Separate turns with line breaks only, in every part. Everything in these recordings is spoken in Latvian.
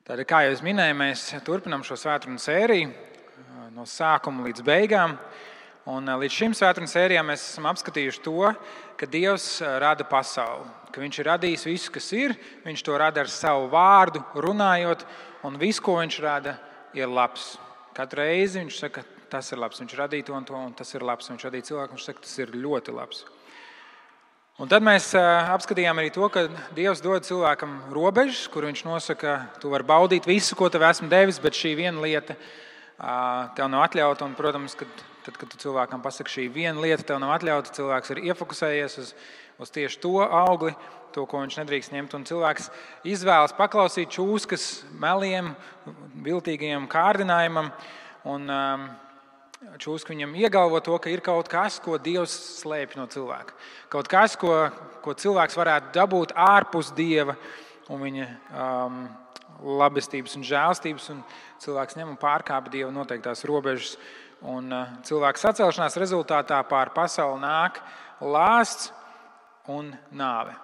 Tātad, kā jau es minēju, mēs turpinām šo svētkrunu sēriju no sākuma līdz beigām. Un līdz šim svētkrunu sērijām mēs esam apskatījuši to, ka Dievs rada pasauli, ka Viņš ir radījis visu, kas ir, Viņš to rada ar savu vārdu, runājot, un viss, ko Viņš rada, ir labs. Katru reizi Viņš saka, tas ir labs, Viņš radīja to, un tas ir labs. Viņš radīja cilvēku, Viņš saka, tas ir ļoti labs. Un tad mēs apskatījām arī to, ka Dievs dod cilvēkam robežas, kur Viņš nosaka, tu vari baudīt visu, ko tev esmu devis, bet šī viena lieta tev nav atļauta. Un, protams, kad tu cilvēkam pasaki, šī viena lieta tev nav atļauta, cilvēks ir iefokusējies uz tieši to augli, to, ko viņš nedrīkst ņemt. Un cilvēks izvēlas paklausīt čūskas meliem, viltīgajam kārdinājumam. Un čūska viņam iegalvo to, ka ir kaut kas, ko Dievs slēpj no cilvēka. Kaut kas, ko cilvēks varētu dabūt ārpus Dieva un viņa labestības un žēlstības. Un cilvēks ņem un pārkāpj Dieva noteiktās robežas. Un cilvēka sacelšanās rezultātā pār pasauli nāk lāsts un nāve.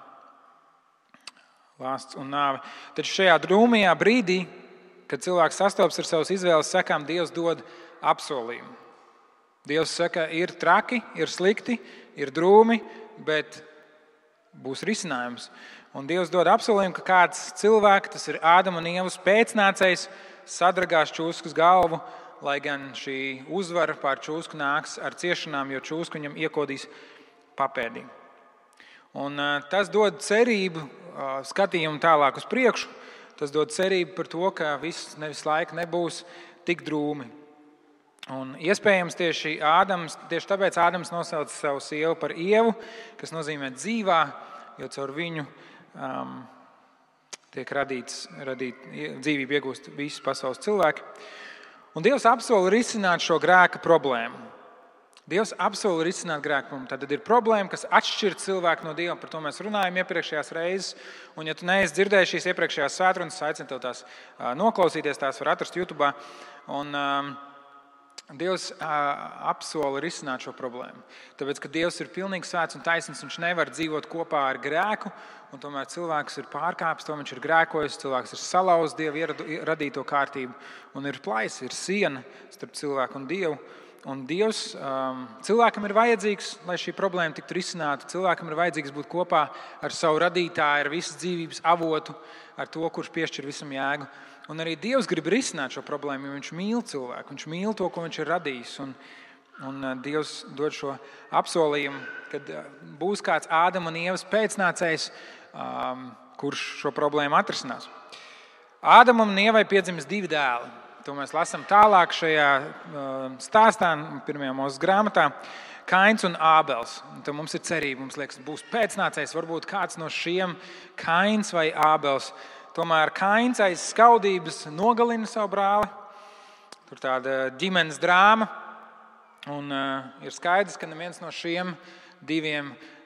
Lāsts un nāve. Taču šajā drūmajā brīdī, kad cilvēks sastopas ar savas izvēles sekām, Dievs dod apsolījumu. Dievs saka, ir traki, ir slikti, ir drūmi, bet būs risinājums. Un Dievs dod apsolījumu, ka kāds cilvēks, tas ir Ādama un Ievas pēcnācējs, sadragās čūskas galvu, lai gan šī uzvara pār čūsku nāks ar ciešanām, jo čūska viņam iekodīs papēdī. Un tas dod cerību, skatījumu tālāk uz priekšu. Tas dod cerību par to, ka viss nevis laika nebūs tik drūmi. Un iespējams tieši tāpēc Ādams nosauca savu sievu par Ievu, kas nozīmē dzīvā, jo caur viņu tiek dzīvību iegūst visi pasaules cilvēki. Un Dievs apsola risināt šo grēka problēmu. Dievs apsola risināt grēka problēmu. Tad ir problēma, kas atšķir cilvēku no Dieva. Par to mēs runājam iepriekšējās reizes. Un ja tu neesi dzirdējis šīs iepriekšējās svētrunas, aicinu tev tās noklausīties, tās var atrast YouTube. Un Dievs apsola risināt šo problēmu. Tāpēc, ka Dievs ir pilnīgi svēts un taisnīgs, Viņš nevar dzīvot kopā ar grēku, un tomēr cilvēks ir pārkāpis, to viņš ir grēkojis, cilvēks ir salauzis Dieva radīto kārtību, un ir plaisa, ir siena starp cilvēku un Dievu. Un Dievs cilvēkam ir vajadzīgs, lai šī problēma tiktu risināta. Cilvēkam ir vajadzīgs būt kopā ar savu radītāju, ar visas dzīvības avotu, ar to, kurš piešķir visam jēgu. Un arī Dievs grib risināt šo problēmu, jo Viņš mīl cilvēku. Viņš mīl to, ko Viņš ir radījis. Un Dievs dod šo apsolījumu, kad būs kāds Ādama un Ievas pēcnācējs, kurš šo problēmu atrisinās. Ādamam un Ievai piedzimis 2 dēli. To mēs lasām tālāk šajā stāstā, 1. Mūzes grāmatā. Kains un Ābels. Un tad mums ir cerība, mums liekas, būs pēcnācējs, varbūt kāds no šiem, Kains vai Ābels. Tomēr Kains aiz skaudības nogalina savu brāli. Tur tāda ģimenes drāma. Un ir skaidrs, ka neviens no šiem 2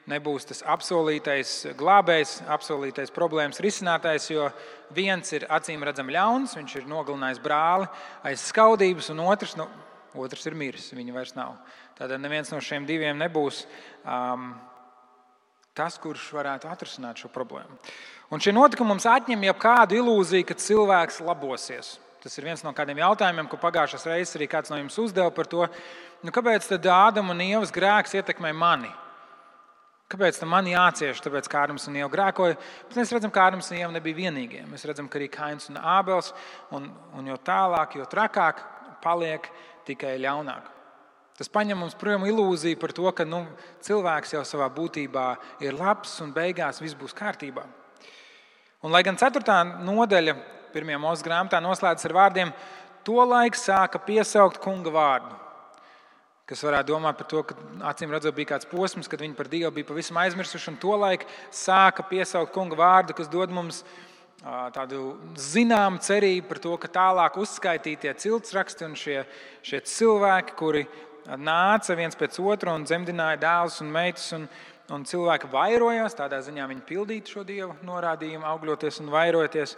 nebūs tas apsolītais glābējs, apsolītais problēmas risinātājs, jo viens ir acīm redzami ļauns, viņš ir nogalinājis brāli aiz skaudības, un otrs ir miris, viņa vairs nav. Tātad neviens no šiem 2 nebūs tas, kurš varētu atrisināt šo problēmu. Un šie notikumi mums atņem jau kādu ilūziju, ka cilvēks labosies. Tas ir viens no kādiem jautājumiem, ko pagājušās reizes arī kāds no jums uzdeva par to, kāpēc tad Ādama un Ievas grēks ietekmē mani? Kāpēc tam man jācieš? Tāpēc, ka Ādams un Ieva grēkoja. Bet mēs redzam, ka Ādams un Ieva nebija vienīgie. Mēs redzam, ka arī Kains un Ābels, un jo tālāk, jo trakāk paliek tikai ļaunāk. Tas paņem mums projām ilūziju par to, ka cilvēks jau savā būtībā ir labs un beigās viss būs kārtībā. Un lai gan 4. nodaļa 1. Mūzes grāmatā noslēdzas ar vārdiem, tolaik sāka piesaukt kunga vārdu. Kas varētu domāt par to, ka acīm redzot bija kāds posms, kad viņi par Dievu bija pavisam aizmirsuši, un tolaik sāka piesaukt kunga vārdu, kas dod mums tādu zināmu cerību par to, ka tālāk uzskaitītie ciltsraksti un šie cilvēki, kuri nāca viens pēc otra un dzemdināja dēlus un meitas, un cilvēki vairojās, tādā ziņā viņi pildītu šo Dieva norādījumu, augļoties un vairoties.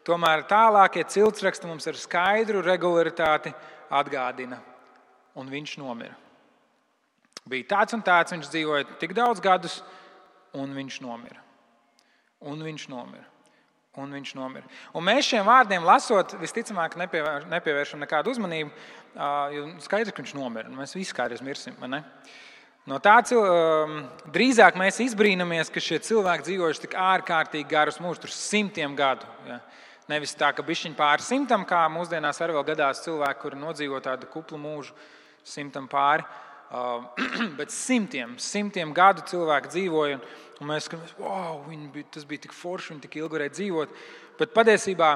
Tomēr tālākie ciltsraksti mums ar skaidru regularitāti atgādina. Un viņš nomira. Bija tāds un tāds, viņš dzīvoja tik daudz gadus, un viņš nomira. Un viņš nomira. un viņš nomira. Un mēs šiem vārdiem lasot, visticamāk nepievēršam nekādu uzmanību, jo skaidrs, ka viņš nomira. Mēs visi kādreiz mirsim, vai ne? No tā drīzāk mēs izbrīnamies, ka šie cilvēki dzīvojuši tik ārkārtīgi garus mūžus, tur 100 gadu. Ja? Nevis tā, ka bišķiņ pāri 100, kā mūsdienās arī vēl gadās cilvēki, kuri nodzīvo tādu kuplu mūžu 100 pāri. Bet 100 gadu cilvēki dzīvoja, un mēs skatāmies, wow, tas bija tik forši, viņi tik ilgi varēja dzīvot. Bet patiesībā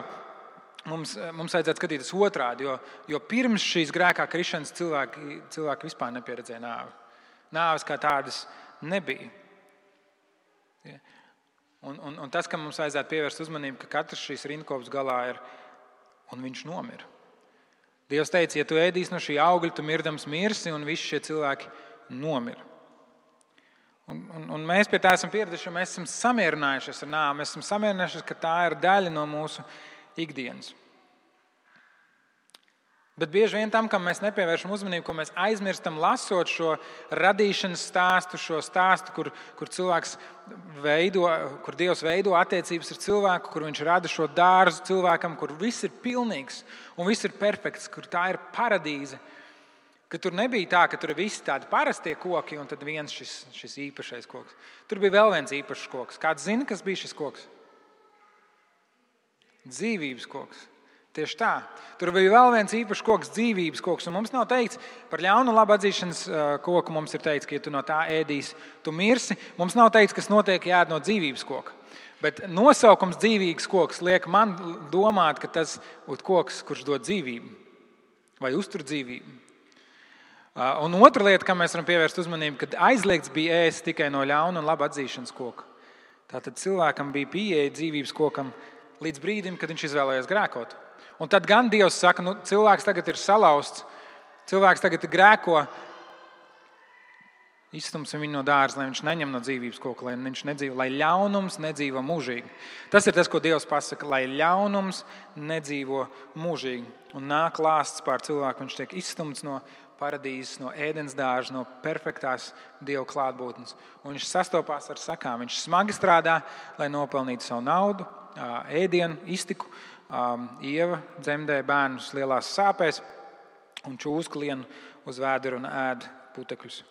mums vajadzētu skatīties otrādi, jo pirms šīs grēkā krišanas cilvēki vispār nepieredzēja nāvi. Nāves kā tādas nebija. Un tas, ka mums vajadzētu pievērst uzmanību, ka katrs šīs rindkopas galā ir, un viņš nomira. Dievs teica, ja tu ēdīsi no šī augļa, tu mirdams mirsi, un visi šie cilvēki nomira. Un mēs pie tā esam pieraduši, jo mēs esam samierinājušies ar nāvi. Mēs esam samierinājušies, ka tā ir daļa no mūsu ikdienas. Bet bieži vien tam, kam mēs nepievēršam uzmanību, ko mēs aizmirstam lasot šo radīšanas stāstu, šo stāstu, kur cilvēks kur Dievs veido attiecības ar cilvēku, kur viņš rada šo dārzu cilvēkam, kur viss ir pilnīgs un viss ir perfekts, kur tā ir paradīze. Ka tur nebija tā, ka tur ir visi tādi parastie koki un tad viens šis īpašais koks. Tur bija vēl viens īpašs koks. Kāds zina, kas bija šis koks? Dzīvības koks. Tieši tā. Tur bija vēl viens īpašs koks, dzīvības koks. Un mums nav teikts par ļaunu un labu atzīšanas koku. Mums ir teikts, ka ja tu no tā ēdīsi, tu mirsi. Mums nav teikts, kas notiek, ja ēd no dzīvības koka. Bet nosaukums dzīvības koks liek man domāt, ka tas ir koks, kurš dod dzīvību vai uztur dzīvību. Un otra lieta, kam mēs varam pievērst uzmanību, kad aizliegts bija ēst tikai no ļauna un laba atzīšanas koka. Tātad cilvēkam bija pieeja dzīvības kokam līdz brīdim, kad viņš izvēlējās grēkot. Un tad gan Dievs saka, cilvēks tagad ir salauzts, cilvēks tagad grēko, izstumsim viņu no dārza, lai viņš neņem no dzīvības koka, lai viņš nedzīvo, lai ļaunums nedzīvo mūžīgi. Tas ir tas, ko Dievs pasaka, lai ļaunums nedzīvo mūžīgi. Un nāk lāsts pār cilvēku, viņš tiek izstumts no paradīzes, no ēdens dārza, no perfektās Dieva klātbūtnes. Un viņš sastopās ar sakām, viņš smagi strādā, lai nopelnītu savu naudu, ēdienu, iztiku. Ieva dzemdē bērnus lielās sāpēs un čūska lien uz vēdera un ēd putekļus.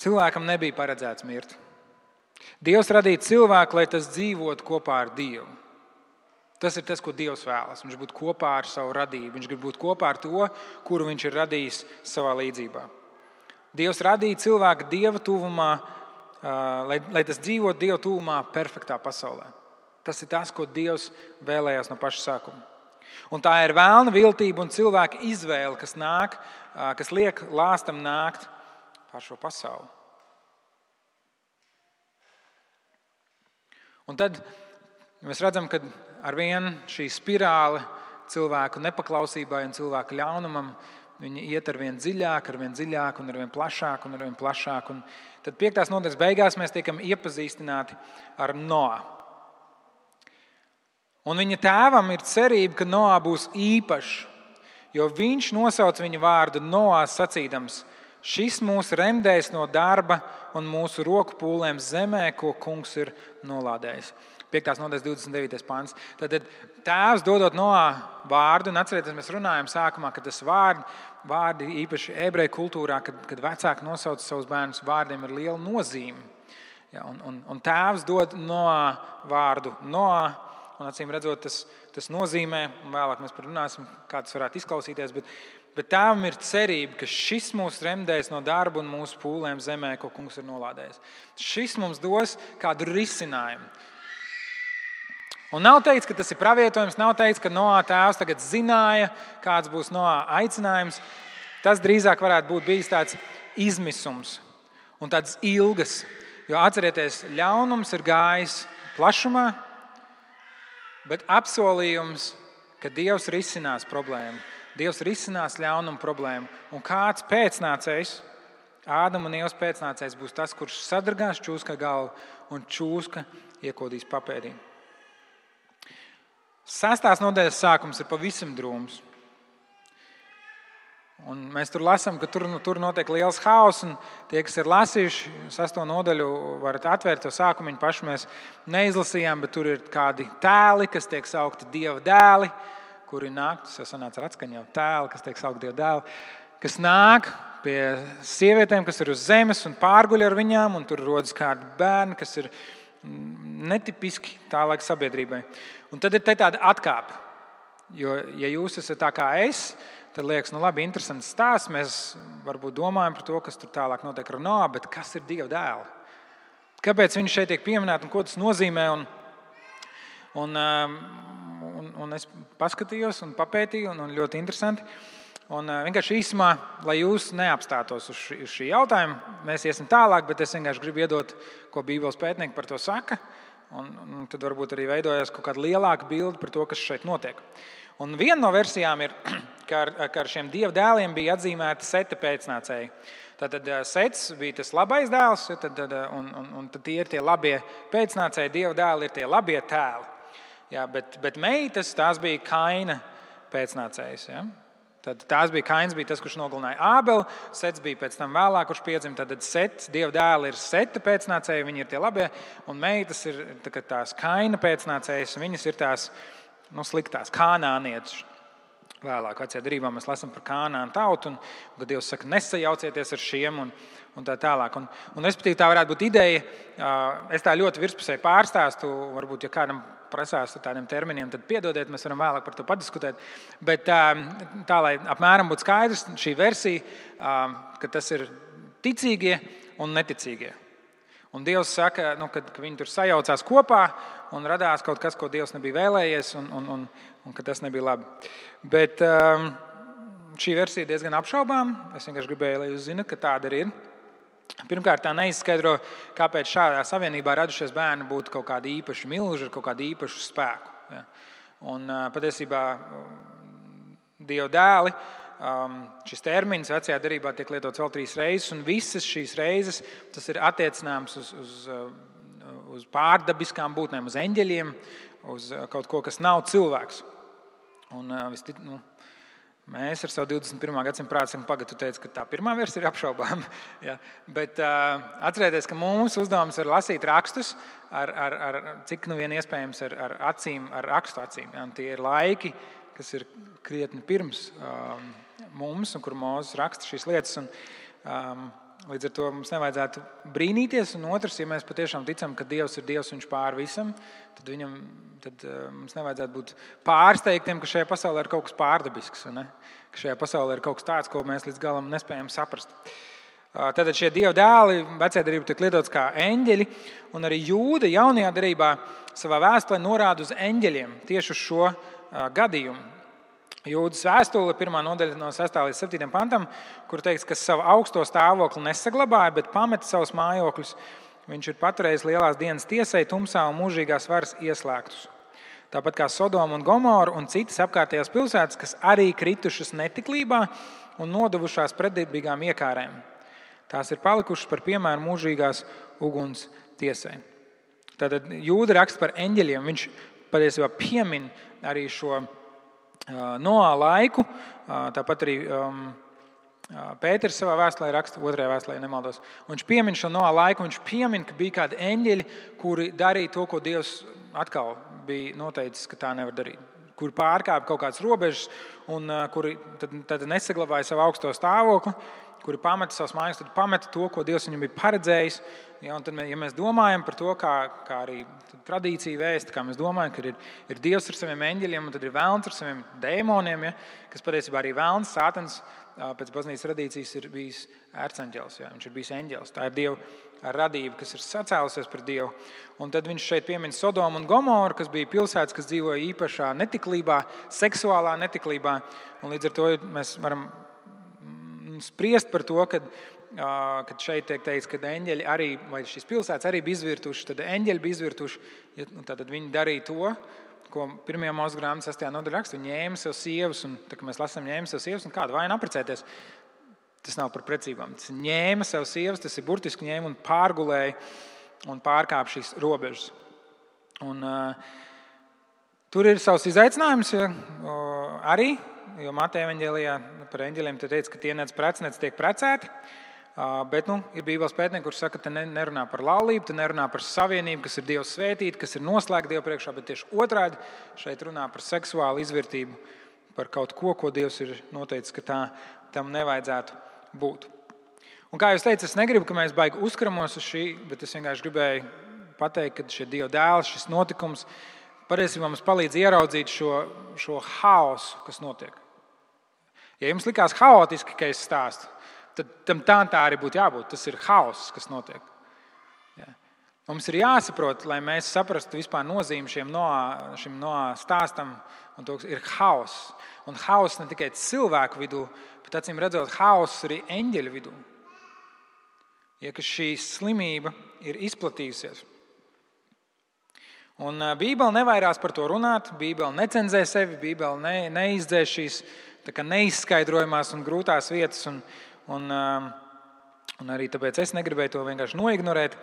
Cilvēkam nebija paredzēts mirt. Dievs radīja cilvēku, lai tas dzīvotu kopā ar Dievu. Tas ir tas, ko Dievs vēlas. Viņš būtu kopā ar savu radību. Viņš grib būt kopā ar to, kuru viņš ir radījis savā līdzībā. Dievs radīja cilvēku Dieva tuvumā, lai tas dzīvotu Dieva tuvumā perfektā pasaulē. Tas ir tas, ko Dievs vēlējās no paša sākuma. Un tā ir vēlna viltība un cilvēka izvēle, kas liek lāstam nākt pār šo pasauli. Un tad mēs redzam, ka arvien šī spirāle cilvēku nepaklausībai un cilvēku ļaunumam, viņi iet arvien dziļāk un arvien plašāk. Un tad 5. nodaļas beigās mēs tiekam iepazīstināti ar Noā. Un viņa tēvam ir cerība, ka Noā būs īpašs, jo viņš nosauc viņa vārdu Noā sacīdams: šis mūs remdēs no darba un mūsu roku pūlēm zemē, ko kungs ir nolādējis. 5. nodaļas 29. pants. Tad tēvs dodot Noā vārdu, un atcerieties, mēs runājam sākumā, ka tas vārdi īpaši ebreju kultūrā, kad vecāki nosauc savus bērnus, vārdiem ir liela nozīme. Ja, un tēvs dod Noā vārdu Noā, un acīm redzot, tas nozīmē, un vēlāk mēs parunāsim, kā tas varētu izklausīties, bet tēvam ir cerība, ka šis mūs remdēs no darba un mūsu pūlēm zemē, ko kungs ir nolādējis. Šis mums dos kādu risinājumu. Un nav teikts, ka tas ir pravietojums, nav teikts, ka Noā tēvs tagad zināja, kāds būs Noā aicinājums. Tas drīzāk varētu būt bijis tāds izmisums un tāds ilgas. Jo atcerieties, ļaunums ir gājis plašumā, bet apsolījums, ka Dievs risinās problēmu. Dievs risinās ļaunumu problēmu. Un kāds pēcnācējs, Ādama un Ievas pēcnācējs, būs tas, kurš sadragās čūska galvu un čūska iekodīs papēdī. 6. nodaļas sākums ir pavisam drūms. Un mēs tur lasām, ka tur notiek liels haoss, un tie, kas ir lasījuši 6. nodaļu, varat atvērt to sākumu, paši mēs neizlasījām, bet tur ir kādi tēli, kas tiek saukti Dieva dēli, kuri nāk, tas jau sanāca ar atskaņu, tēli, kas tiek saukti Dieva dēli, kas nāk pie sievietēm, kas ir uz zemes un pārguļ ar viņām, un tur rodas kādi bērni, kas ir netipiski tā laika sabiedrībai. Un tad ir tāda atkāpe, jo, ja jūs esat tā kā es, tad liekas, labi, interesants stāsts. Mēs varbūt domājam par to, kas tur tālāk notiek ar Noā, bet kas ir Dieva dēli? Kāpēc viņi šeit tiek pieminēti un ko tas nozīmē? Un es paskatījos un papētīju, un ļoti interesanti. Un vienkārši īsumā, lai jūs neapstātos uz šī jautājuma, mēs iesim tālāk, bet es vienkārši gribu iedot, ko Bībeles pētnieki par to saka. Un tad varbūt arī veidojas kaut kāda lielāka bilde par to, kas šeit notiek. Un viena no versijām ir, ka ar šiem Dieva dēliem bija atzīmēti Seta pēcnācēji. Tātad Sets bija tas labais dēls, un tad tie ir tie labie pēcnācēji, Dieva dēli ir tie labie tēli. Jā, bet meitas, tās bija Kaina pēcnācējs. Ja? Tad Kains bija tas, kurš nogalināja Ābeli, Sets bija pēc tam vēlāk, kurš piedzima. Tad Sets, Dieva dēli ir Seta pēcnācēji, viņi ir tie labie, un meitas ir tās Kaina pēcnācējas, viņas ir tās sliktās kanānietis. Vēlāk vecajā derībā mēs lasām par Kanānu tautu, un kad Dievs saka, nesajaucieties ar šiem un tā tālāk. Un respektīvi tā varētu būt ideja. Es tā ļoti virspusēji pārstāstu, varbūt, ja kādam prasās ar tādiem terminiem, tad piedodiet, mēs varam vēlāk par to padiskutēt. Bet tā, lai apmēram būtu skaidrs, šī versija, ka tas ir ticīgie un neticīgie. Un Dievs saka, ka viņi tur sajaucās kopā un radās kaut kas, ko Dievs nebija vēlējies, un ka tas nebija labi. Bet šī versija ir diezgan apšaubām. Es vienkārši gribēju, lai jūs zinat, ka tāda arī ir. Pirmkārt, tā neizskaidro, kāpēc šādā savienībā radušies bērni būtu kaut kādi īpaši milži ar kaut kādu īpašu spēku. Ja. Un patiesībā Dieva dēli, šis termins vecajā derībā tiek lietots vēl 3 reizes, un visas šīs reizes tas ir attiecināms uz pārdabiskām būtnēm, uz eņģeļiem, uz kaut ko, kas nav cilvēks. Un mēs ar savu 21. gadsimtu prātu esam tu teici, ka tā pirmā versija ir apšaubām. Ja. Bet atcerieties, ka mūsu uzdevums ir lasīt rakstus ar cik vien iespējams ar acīm, ar rakstu acīm. Ja. Tie ir laiki, kas ir krietni pirms mums, un kur Mūzes raksta šīs lietas. Līdz ar to mums nevajadzētu brīnīties. Un otrs, ja mēs patiešām ticam, ka Dievs ir Dievs, viņš pār visam, tad mums nevajadzētu būt pārsteigtiem, ka šajā pasaulē ir kaut kas pārdabisks. Ne? Ka šajā pasaulē ir kaut kas tāds, ko mēs līdz galam nespējam saprast. Tātad šie Dieva dēli vecajā derībā tiek lietots kā eņģeļi, un arī Jūda jaunajā derībā savā vēstulē norāda uz eņģeļiem tieši uz šo gadījumu. Jūdas vēstule, 1. nodaļa no 6. līdz 7. pantam, kur teikts, ka savu augsto stāvokli nesaglabāja, bet pameta savus mājokļus. Viņš ir paturējis lielās dienas tiesai, tumsā un mūžīgās varas ieslēgtus. Tāpat kā Sodoma un Gomora un citas apkārtējās pilsētas, kas arī kritušas netiklībā un nodevušās pretdarbīgām iekārēm. Tās ir palikušas par piemēru mūžīgās uguns tiesai. Tātad Jūda raksta par eņģeļiem. Viņš patiesībā piemin arī šo Noā laiku, tāpat arī Pēters savā vēstulē raksta, 2. vēstulē, ja nemaldos. Un viņš piemin šo Noā laiku, viņš piemin, ka bija kādi eņģeļi, kuri darīja to, ko Dievs atkal bija noteicis, ka tā nevar darīt. Kuri pārkāpa kaut kādas robežas un kuri tad nesaglabāja savu augsto stāvokli, kuri pameta savus mājas, tad pameta to, ko Dievs viņam bija paredzējis. Ja, un tad, ja mēs domājam par to, kā arī tradīcija vēsta, kā mēs domājam, ka ir Dievs ar saviem eņģeļiem, un tad ir velns ar saviem dēmoniem, ja, kas patiesībā arī velns, Sātans, pēc baznīcas tradīcijas ir bijis ērceņģelis, ja, viņš ir bijis eņģelis. Tā ir Dieva radība, kas ir sacēlusies par Dievu. Un tad viņš šeit piemin Sodomu un Gomoru, kas bija pilsētas, kas dzīvoja īpašā netiklībā, seksuālā netiklībā. Un līdz ar to mēs varam spriest par to, kad šeit tiek teikts, ka eņģeļi arī, vai šīs pilsētas arī bija izvirtuši, tad eņģeļi bija izvirtuši, tad viņi darīja to, ko 1. Mūzes grāmatas 6. nodaļā raksta. Viņi ņēma sev sievas, un tā, ka mēs lasām ņēma sev sievas, un kādu vainu apprecēties. Tas nav par precībām. Tas ņēma sev sievas, tas ir burtiski ņēma un pārgulēja un pārkāpa šīs robežas. Un tur ir savs izaicinājums, ja, arī jo Mateja evaņģēlijā par eņģeļiem te teica, ka tie nec prec, nec tiek precēti. Bet ir Bībeles pētnieki, kurš saka, ka te nerunā par laulību, te nerunā par savienību, kas ir Dieva svētīta, kas ir noslēgta Dieva priekšā, bet tieši otrādi šeit runā par seksuālu izvērtību, par kaut ko, ko Dievs ir noteicis, ka tam nevajadzētu būt. Un kā jūs teicat, es negribu, ka mēs baigi uzkramos uz šī, bet es vienkārši gribēju pateikt, ka šie Dieva dēls, šis notikums patiesībā mums palīdz ieraudzīt šo haosu, kas notiek. Ja jums likās haotiski, ka es stāstu, tad tam tā arī būtu jābūt. Tas ir haoss, kas notiek. Ja. Mums ir jāsaprot, lai mēs saprastu vispār nozīmi šim Noā stāstam, un to ir haoss. Un haoss ne tikai cilvēku vidū, bet acīm redzot, haoss arī eņģeļu vidū. Ja, ka šī slimība ir izplatījusies. Un Bībele nevairās par to runāt, Bībele necenzē sevi, Bībele neizdzēš šīs neizskaidrojamās un grūtās vietas, un arī tāpēc es negribēju to vienkārši noignorēt.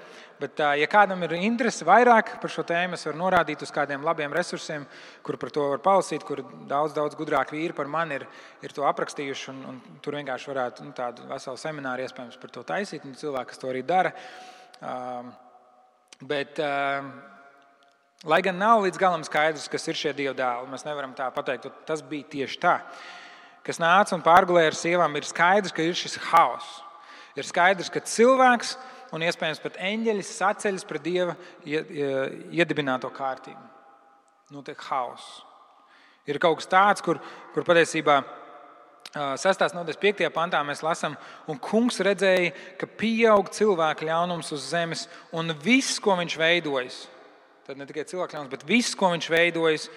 Bet, ja kādam ir interese vairāk par šo tēmu, es varu norādīt uz kādiem labiem resursiem, kur par to var palasīt, kur daudz gudrāk vīri par mani ir to aprakstījuši, un tur vienkārši varētu tādu veselu semināru iespējams par to taisīt, un cilvēki, kas to arī dara. Bet, lai gan nav līdz galam skaidrs, kas ir šie Dieva dēli, mēs nevaram tā pateikt, ka tas bija tieši tā. Kas nāca un pārgulēja ar sievām, ir skaidrs, ka ir šis haoss. Ir skaidrs, ka cilvēks un iespējams pat eņģeļi saceļas pret Dieva iedibināto kārtību. Notiek haoss. Ir kaut kas tāds, kur patiesībā 6. nodaļas 5. pantā mēs lasām, un kungs redzēja, ka pieaug cilvēku ļaunums uz zemes, un viss, ko viņš veidojis, tad ne tikai cilvēku ļaunums, bet viss, ko viņš veidojis,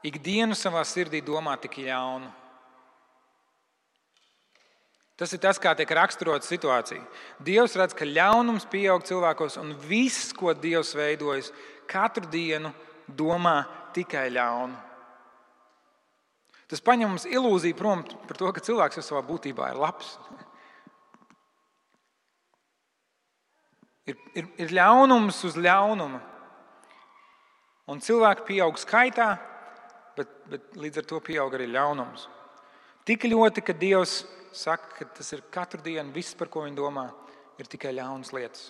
ikdienu savā sirdī domā tik ļaunu. Tas ir tas, kā tiek raksturota situācija. Dievs redz, ka ļaunums pieaug cilvēkos, un viss, ko Dievs veidojis, katru dienu domā tikai ļaunu. Tas paņem mums ilūziju prom par to, ka cilvēks jau savā būtībā ir labs. Ir ļaunums uz ļaunuma. Un cilvēki pieaug skaitā, bet līdz ar to pieaug arī ļaunums. Tik ļoti, ka Dievs saka, ka tas ir katru dienu, viss, par ko viņi domā, ir tikai ļaunas lietas.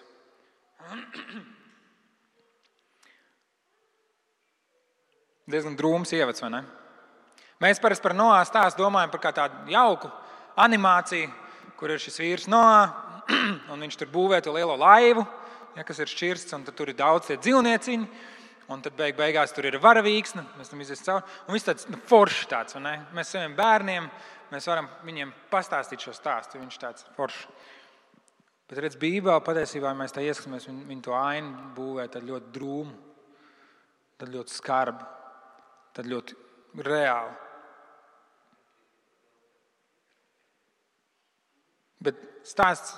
Diezgan drūms ievads, vai ne? Mēs parasti par Noā stāstu domājam par kā tādu jauku animāciju, kur ir šis vīrs Noā, un viņš tur būvē to lielo laivu, kas ir šķirsts, un tad tur ir daudz tie dzīvnieciņi, un tad beigās tur ir varavīksne, mēs tam izies cauri, un viss tāds foršs tāds, vai ne? Mēs saviem bērniem, mēs varam viņiem pastāstīt šo stāstu, viņš tāds foršs. Bet redz, Bībelē patiesībā, ja mēs tā ieskatāmies, viņi to ainu būvē tad ļoti drūmu, tad ļoti skarbu, tad ļoti reāli. Bet stāsts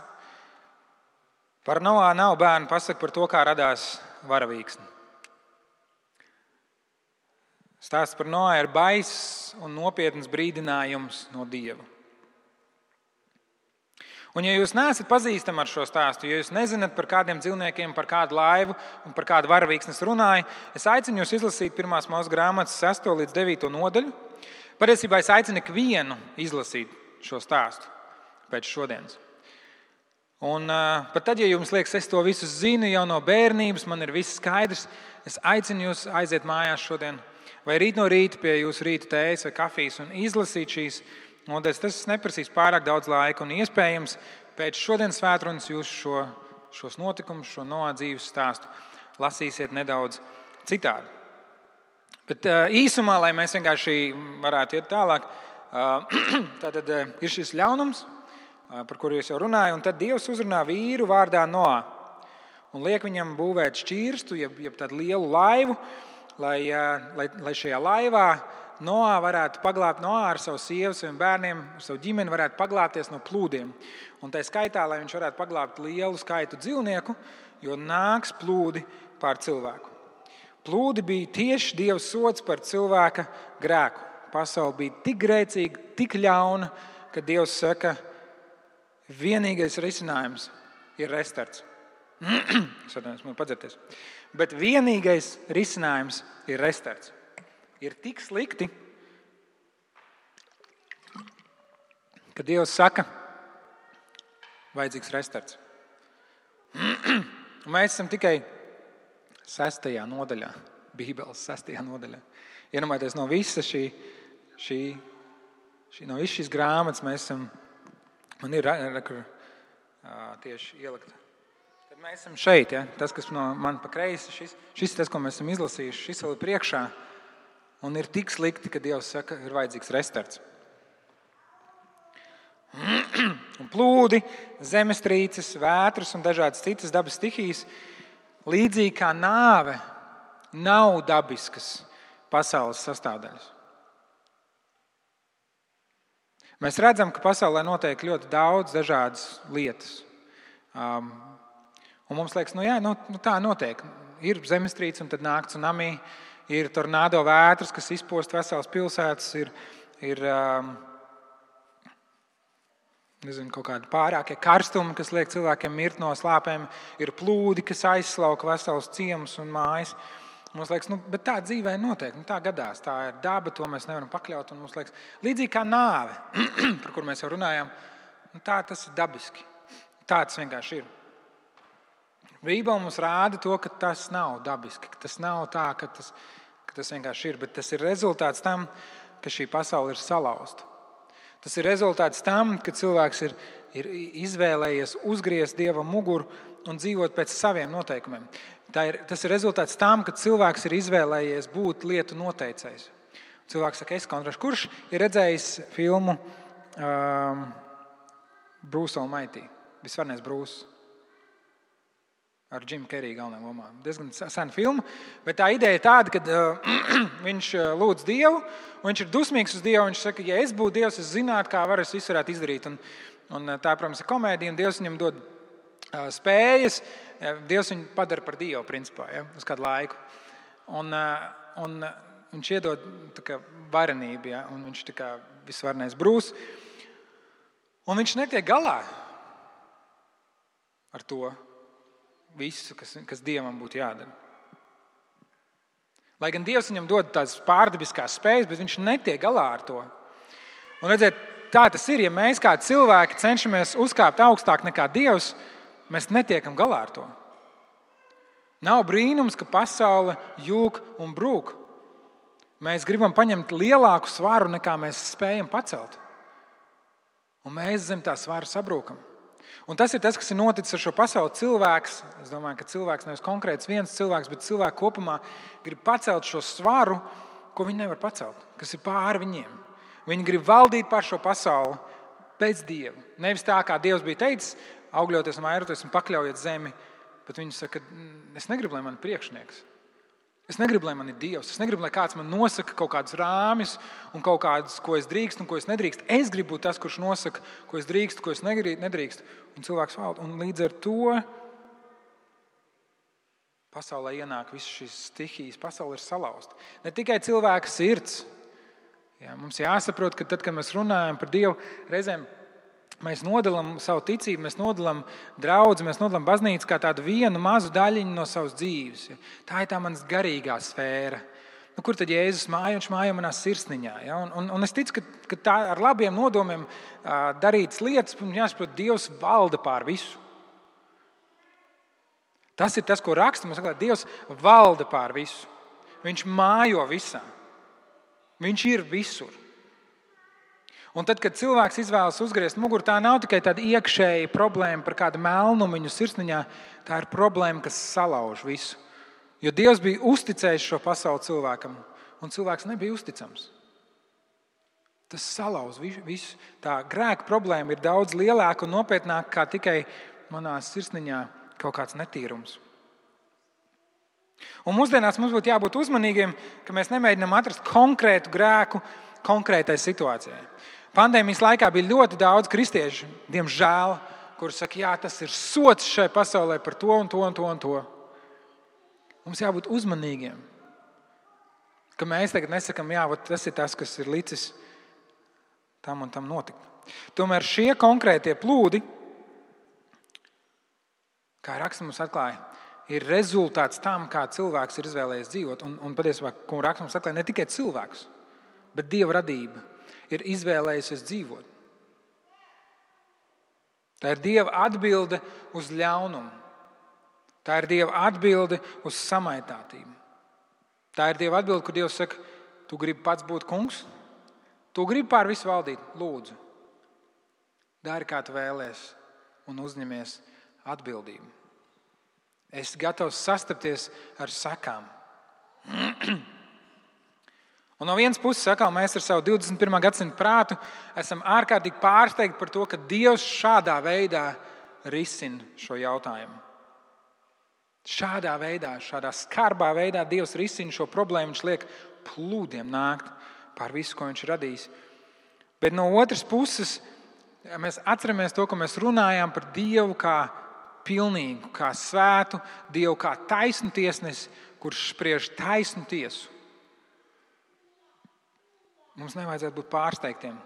par Noā nav bērnu pasaka par to, kā radās varavīksne. Stāsts par Noā ir baiss un nopietns brīdinājums no Dieva. Un ja jūs neesat pazīstami ar šo stāstu, ja jūs nezināt par kādiem dzīvniekiem, par kādu laivu un par kādu varavīksnes runāju, es aicinu jūs izlasīt 1. Mūzes grāmatas 6. līdz 9. nodaļu. Patiesībā es aicinu ikvienu izlasīt šo stāstu pēc šodienas. Un pat tad, ja jums liekas, es to visu zinu jau no bērnības, man ir viss skaidrs, es aicinu jūs aiziet mājās šodien vai rīt no rīta pie jūsu rīta tējas vai kafijas un izlasīt šīs nodaļas. Tas neprasīs pārāk daudz laika un iespējams pēc šodienas svētrunas jūs šos notikumus, šo Noā dzīves stāstu lasīsiet nedaudz citādi. Bet īsumā, lai mēs vienkārši varētu iet tālāk, tātad ir šis ļaunums, par kuru es jau runāju, un tad Dievs uzrunā vīru vārdā Noā un liek viņam būvēt šķirstu, jeb tādu lielu laivu, lai šajā laivā Noā varētu paglābt ar savu sievu, saviem bērniem, ar savu ģimeni varētu paglābties no plūdiem. Un tā skaitā, lai viņš varētu paglābt lielu skaitu dzīvnieku, jo nāks plūdi pār cilvēku. Plūdi bija tieši Dieva sods par cilvēka grēku. Pasaule bija tik grēcīga, tik ļauna, ka Dievs saka, vienīgais risinājums ir restarts. Es atvainojos, man padzerties. Bet vienīgais risinājums ir restarts. Ir tik slikti, ka Dievs saka, vajadzīgs restarts. Mēs esam tikai 6. nodaļā, Bībeles 6. nodaļā. Iedomājieties, no visas no visas šīs grāmatas mēs esam, man ir tieši ielikt. Tad mēs esam šeit, ja? Tas, kas no man pa kreisi, šis ir tas, ko mēs esam izlasījuši, šis vēl ir priekšā. Un ir tik slikti, ka Dievs saka, ir vajadzīgs restarts. Un plūdi, zemestrīces, vētras un dažādas citas dabas stihijas, līdzīgi kā nāve, nav dabiskas pasaules sastāvdaļas. Mēs redzam, ka pasaulē notiek ļoti daudz dažādas lietas. Un mums liekas, tā notiek. Ir zemestrīce un tad nāk tsunami, ir tornado vētras, kas izpost veselas pilsētas, ir kaut kādi pārākie karstumi, kas liek cilvēkiem mirt no slāpēm, ir plūdi, kas aizslauka veselas ciemus un mājas. Mums liekas, bet tā dzīvē notiek, tā gadās, tā ir daba, to mēs nevaram pakļaut. Un mums liekas, līdzīgi kā nāve, par kur mēs jau runājām, tā tas ir dabiski. Tā tas vienkārši ir. Bībele mums rāda to, ka tas nav dabiski, ka tas nav tā, ka tas vienkārši ir, bet tas ir rezultāts tam, ka šī pasaule ir salauzta. Tas ir rezultāts tam, ka cilvēks ir izvēlējies uzgriezt Dievam muguru un dzīvot pēc saviem noteikumiem. Tas ir rezultāts tam, ka cilvēks ir izvēlējies būt lietu noteicējs. Cilvēks saka, es kontrašu. Kurš ir redzējis filmu Bruce Almighty? Visvarnais Bruce. Ar Jimu Keriju galvenajā lomā. Diezgan sena filma, bet tā ideja ir tāda, ka viņš lūdz Dievu, un viņš ir dusmīgs uz Dievu. Viņš saka, ja es būtu Dievs, es zinātu, kā es visu varētu izdarīt. Un tā, protams, ir komēdija, un Dievs viņam dod spējas. Dievs viņu padara par Dievu, principā, ja, uz kādu laiku. Un viņš iedod tā kā varenību, ja, un viņš tā kā visvarnais Bruce. Un viņš netiek galā ar to visu, kas Dievam būtu jādara. Lai gan Dievs viņam dod tādas pārdabiskās spējas, bet viņš netiek galā ar to. Un redziet, tā tas ir, ja mēs kā cilvēki cenšamies uzkāpt augstāk nekā Dievs, mēs netiekam galā ar to. Nav brīnums, ka pasaule jūg un brūk. Mēs gribam paņemt lielāku svaru, nekā mēs spējam pacelt. Un mēs zem tā svara sabrūkam. Un tas ir tas, kas ir noticis ar šo pasauli. Cilvēks, es domāju, ka cilvēks nevis konkrēts viens cilvēks, bet cilvēki kopumā grib pacelt šo svaru, ko viņi nevar pacelt, kas ir pāri viņiem. Viņi grib valdīt pār šo pasauli pēc Dieva. Nevis tā, kā Dievs bija teicis, augļoties un vairoties un pakļaujiet zemi, bet viņi saka, es negribu, lai man ir priekšnieks. Es negribu, lai man ir Dievs. Es negribu, lai kāds man nosaka kaut kādus rāmjus un kaut kādus, ko es drīkstu un ko es nedrīkstu. Es gribu būt tas, kurš nosaka, ko es drīkstu, ko es nedrīkstu. Un cilvēks valda. Un līdz ar to pasaulē ienāk visas šīs stihijas. Pasaule ir salauzta. Ne tikai cilvēka sirds. Jā, mums jāsaprot, ka tad, kad mēs runājam par Dievu, reizēm mēs nodalām savu ticību, mēs nodalām draudzi, mēs nodalām baznīcu kā tādu vienu mazu daļiņu no savas dzīves. Tā ir tā manas garīgā sfēra. Kur tad Jēzus māja? Viņš māja manā sirsniņā. Ja? Un es ticu, ka tā ar labiem nodomiem darītas lietas, jāsaprot, Dievs valda pār visu. Tas ir tas, ko raksta. Mums saka, Dievs valda pār visu. Viņš mājo visā. Viņš ir visur. Un tad, kad cilvēks izvēlas uzgriezt muguru, tā nav tikai tāda iekšēja problēma par kādu melnumiņu sirsniņā, tā ir problēma, kas salauž visu. Jo Dievs bija uzticējis šo pasauli cilvēkam, un cilvēks nebija uzticams. Tas salauž visu. Tā grēka problēma ir daudz lielāka un nopietnāka kā tikai manā sirsniņā kaut kāds netīrums. Un mūsdienās mums būtu jābūt uzmanīgiem, ka mēs nemēģinām atrast konkrētu grēku konkrētai situācijai. Pandēmijas laikā bija ļoti daudz kristiešu, diemžēl, kuri saka, jā, tas ir sots šai pasaulē par to un to un to un to. Mums jābūt uzmanīgiem, ka mēs tagad nesakam, jā, tas ir tas, kas ir licis tam un tam notikt. Tomēr šie konkrētie plūdi, kā raksts mums atklāja, ir rezultāts tam, kā cilvēks ir izvēlējies dzīvot. Un patiesībā, ko raksts mums atklāja, ne tikai cilvēks, bet Dieva radība ir izvēlējusies dzīvot. Tā ir Dieva atbilde uz ļaunumu. Tā ir Dieva atbilde uz samaitātību. Tā ir Dieva atbilde, kur Dievs saka, tu gribi pats būt kungs, tu gribi pār visu valdīt, lūdzu. Dari, kā tu vēlies, un uzņemies atbildību. Esi gatavs sastapties ar sakām. Un no vienas puses, mēs ar savu 21. gadsimtu prātu esam ārkārtīgi pārsteigti par to, ka Dievs šādā veidā risina šo jautājumu. Šādā veidā, šādā skarbā veidā Dievs risina šo problēmu. Viņš liek plūdiem nākt pār visu, ko viņš radījis. Bet no otras puses, mēs atceramies to, ka mēs runājām par Dievu kā pilnīgu, kā svētu, Dievu kā taisnu tiesnesi, kurš spriež taisnu tiesu. Mums nevajadzētu būt pārsteigtiem,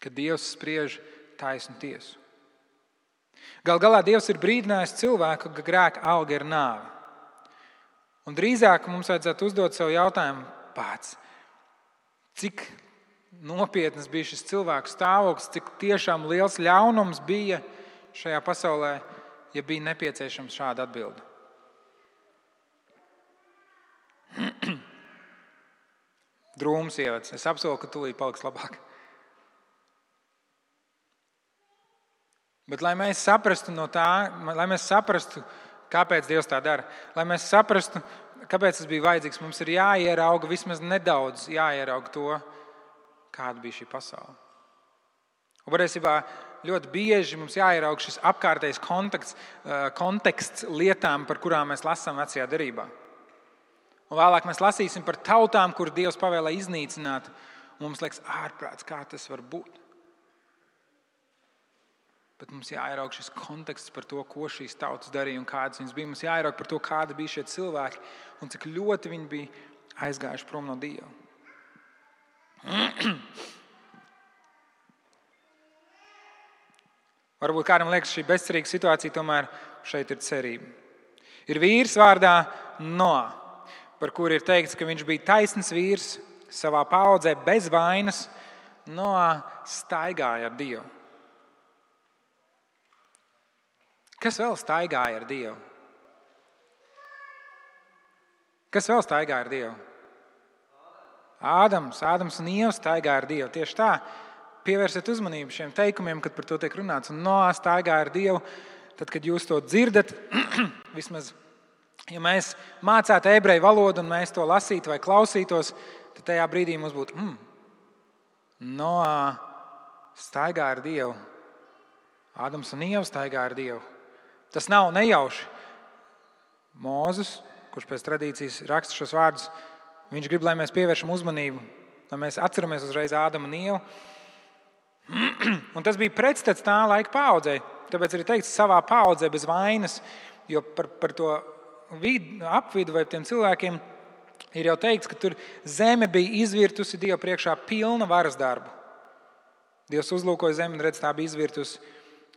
ka Dievs spriež taisnu tiesu. Gal galā Dievs ir brīdinājis cilvēku, ka grēka alga ir nāve. Un drīzāk mums vajadzētu uzdot sev jautājumu pats, cik nopietnas bija šis cilvēku stāvoklis, cik tiešām liels ļaunums bija šajā pasaulē, ja bija nepieciešams šāda atbilde. Drūms ievads. Es apsolu, ka tūlīt paliks labāk. Bet, lai mēs saprastu no tā, lai mēs saprastu, kāpēc Dievs tā dara, lai mēs saprastu, kāpēc tas bija vajadzīgs, mums ir jāierauga vismaz nedaudz, jāierauga to, kāda bija šī pasaule. Un patiesībā ļoti bieži mums jāierauga šis apkārtējs konteksts lietām, par kurām mēs lasām Vecajā derībā. Un vēlāk mēs lasīsim par tautām, kur Dievs pavēlē iznīcināt. Un mums liekas ārprāts, kā tas var būt. Bet mums jāierauga šis konteksts par to, ko šīs tautas darīja un kādas viņas bija. Mums jāierauga par to, kādi bija šie cilvēki un cik ļoti viņi bija aizgājuši prom no Dieva. Varbūt kādam liekas, šī bezcerīga situācija tomēr šeit ir cerība. Ir vīrs vārdā Noā, par kuru ir teikts, ka viņš bija taisns vīrs savā paaudzē bez vainas. Noā staigāja ar Dievu. Kas vēl staigāja ar Dievu? Kas vēl staigāja ar Dievu? Ādams un Ieva staigāja ar Dievu. Tieši tā, pievērsiet uzmanību šiem teikumiem, kad par to tiek runāts. Un Noā staigāja ar Dievu. Tad, kad jūs to dzirdat, vismaz, ja mēs mācētu ebreju valodu un mēs to lasītu vai klausītos, tad tajā brīdī mums būtu Noā staigā ar Dievu. Ādams un Ieva staigā ar Dievu. Tas nav nejauši. Mūzes, kurš pēc tradīcijas raksta šos vārdus, viņš grib, lai mēs pievēršam uzmanību, lai mēs atceramies uzreiz Ādamu un Ievu. Un tas bija pretstats tā laika paaudzei. Tāpēc arī teikts savā paaudzē bez vainas, jo par to apvidu vai tiem cilvēkiem ir jau teikts, ka tur zeme bija izvirtusi Dievu priekšā pilna varas darbu. Dievs uzlūkoja zemi un redz, tā bija izvirtusi,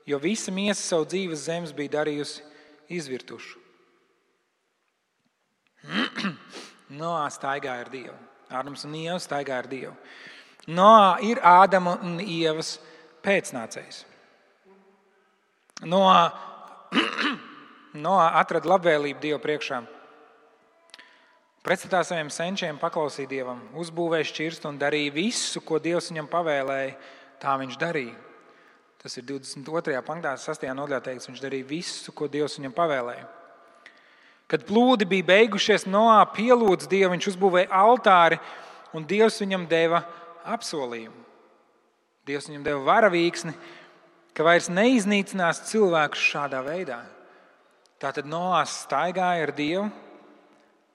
jo visa miesa savu dzīves zemes bija darījusi izvirtušu. Noā staigāja ar Dievu. Ādams un Ieva staigāja ar Dievu. Noā ir Ādama un Ievas pēcnācējs. Noā atrada labvēlību Dievu priekšā. Pretstatā saviem senčiem paklausīja Dievam, uzbūvēja šķirstu un darīja visu, ko Dievs viņam pavēlēja, tā viņš darīja. Tas ir 22. pantā, 6. nodaļā teikts, viņš darīja visu, ko Dievs viņam pavēlēja. Kad plūdi bija beigušies, Noā pielūdza Dievu, viņš uzbūvēja altāri un Dievs viņam deva apsolījumu. Dievs viņam deva varavīksni, ka vairs neiznīcinās cilvēkus šādā veidā. Tātad Noā staigāja ar Dievu,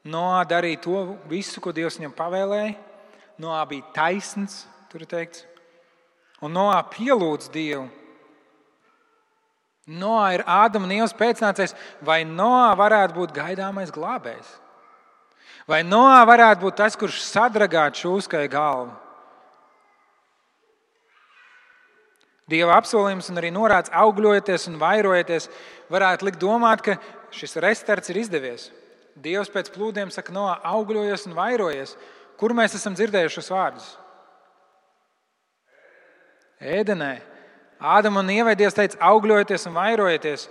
Noā darīja to visu, ko Dievs viņam pavēlēja. Noā bija taisns, tur ir teikts. Un Noā pielūdz Dievu. Noā ir Ādama un Ievas pēcnācējs. Vai Noā varētu būt gaidāmais glābējs? Vai Noā varētu būt tas, kurš sadragātu šūskai galvu? Dieva apsolījums un arī norāds augļojieties un vairojieties varētu likt domāt, ka šis restarts ir izdevies. Dievs pēc plūdiem saka, Noā, augļojies un vairojies. Kur mēs esam dzirdējuši šos vārdus? Ēdenē. Ādam un Ievai Dievs teica, augļojieties un vairojieties.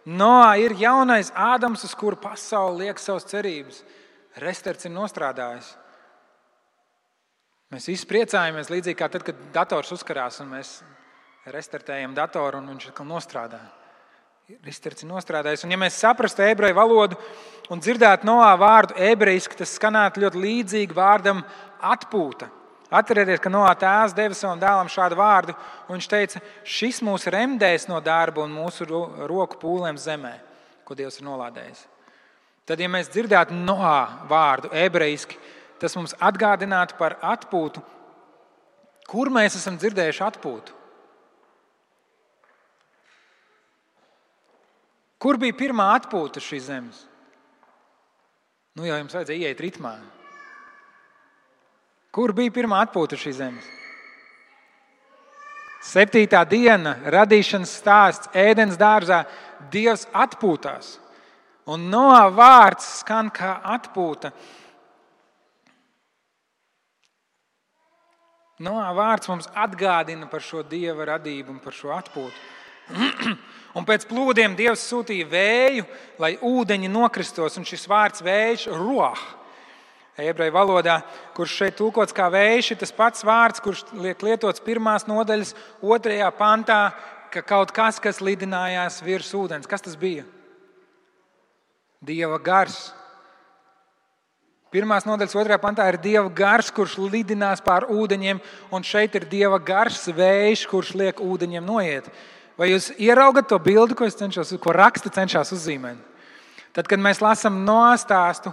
Noā ir jaunais Ādams, uz kuru pasauli liek savas cerības. Restarts ir nostrādājis. Mēs visi priecājamies, līdzīgi kā tad, kad dators uzkarās un mēs restartējam datoru un viņš atkal nostrādā. Restarts ir nostrādājis. Un ja mēs saprastu ebreju valodu un dzirdētu Noā vārdu ebrejiski, tas skanētu ļoti līdzīgi vārdam atpūta. Atcerieties, ka Noā tēvs deva savam dēlam šādu vārdu, un viņš teica, šis mūs remdēs no darba un mūsu roku pūlēm zemē, ko Dievs ir nolādējis. Tad, ja mēs dzirdētu Noā vārdu ebrejiski, tas mums atgādinātu par atpūtu. Kur mēs esam dzirdējuši atpūtu? Kur bija pirmā atpūta šīs zemes? Nu, jau jums vajadzēja ieiet ritmā. Kur bija pirmā atpūta šīs zemes? 7. diena, radīšanas stāsts, Ēdens dārzā, Dievs atpūtās. Un Noā vārds skan kā atpūta. Noā vārds mums atgādina par šo Dieva radību un par šo atpūtu. Un pēc plūdiem Dievs sūtīja vēju, lai ūdeņi nokristos, un šis vārds vējš ruah. Ebreju valodā, kurš šeit tulkots kā vējš, ir tas pats vārds, kurš liek lietots 1. nodaļas 2. pantā, ka kaut kas lidinājās virs ūdens. Kas tas bija? Dieva gars. 1. nodaļas 2. pantā ir Dieva gars, kurš lidinās pār ūdeņiem, un šeit ir Dieva gars vējš, kurš liek ūdeņiem noiet. Vai jūs ieraugat to bildi, ko raksti cenšas uzzīmēt? Tad, kad mēs lasām Noā stāstu,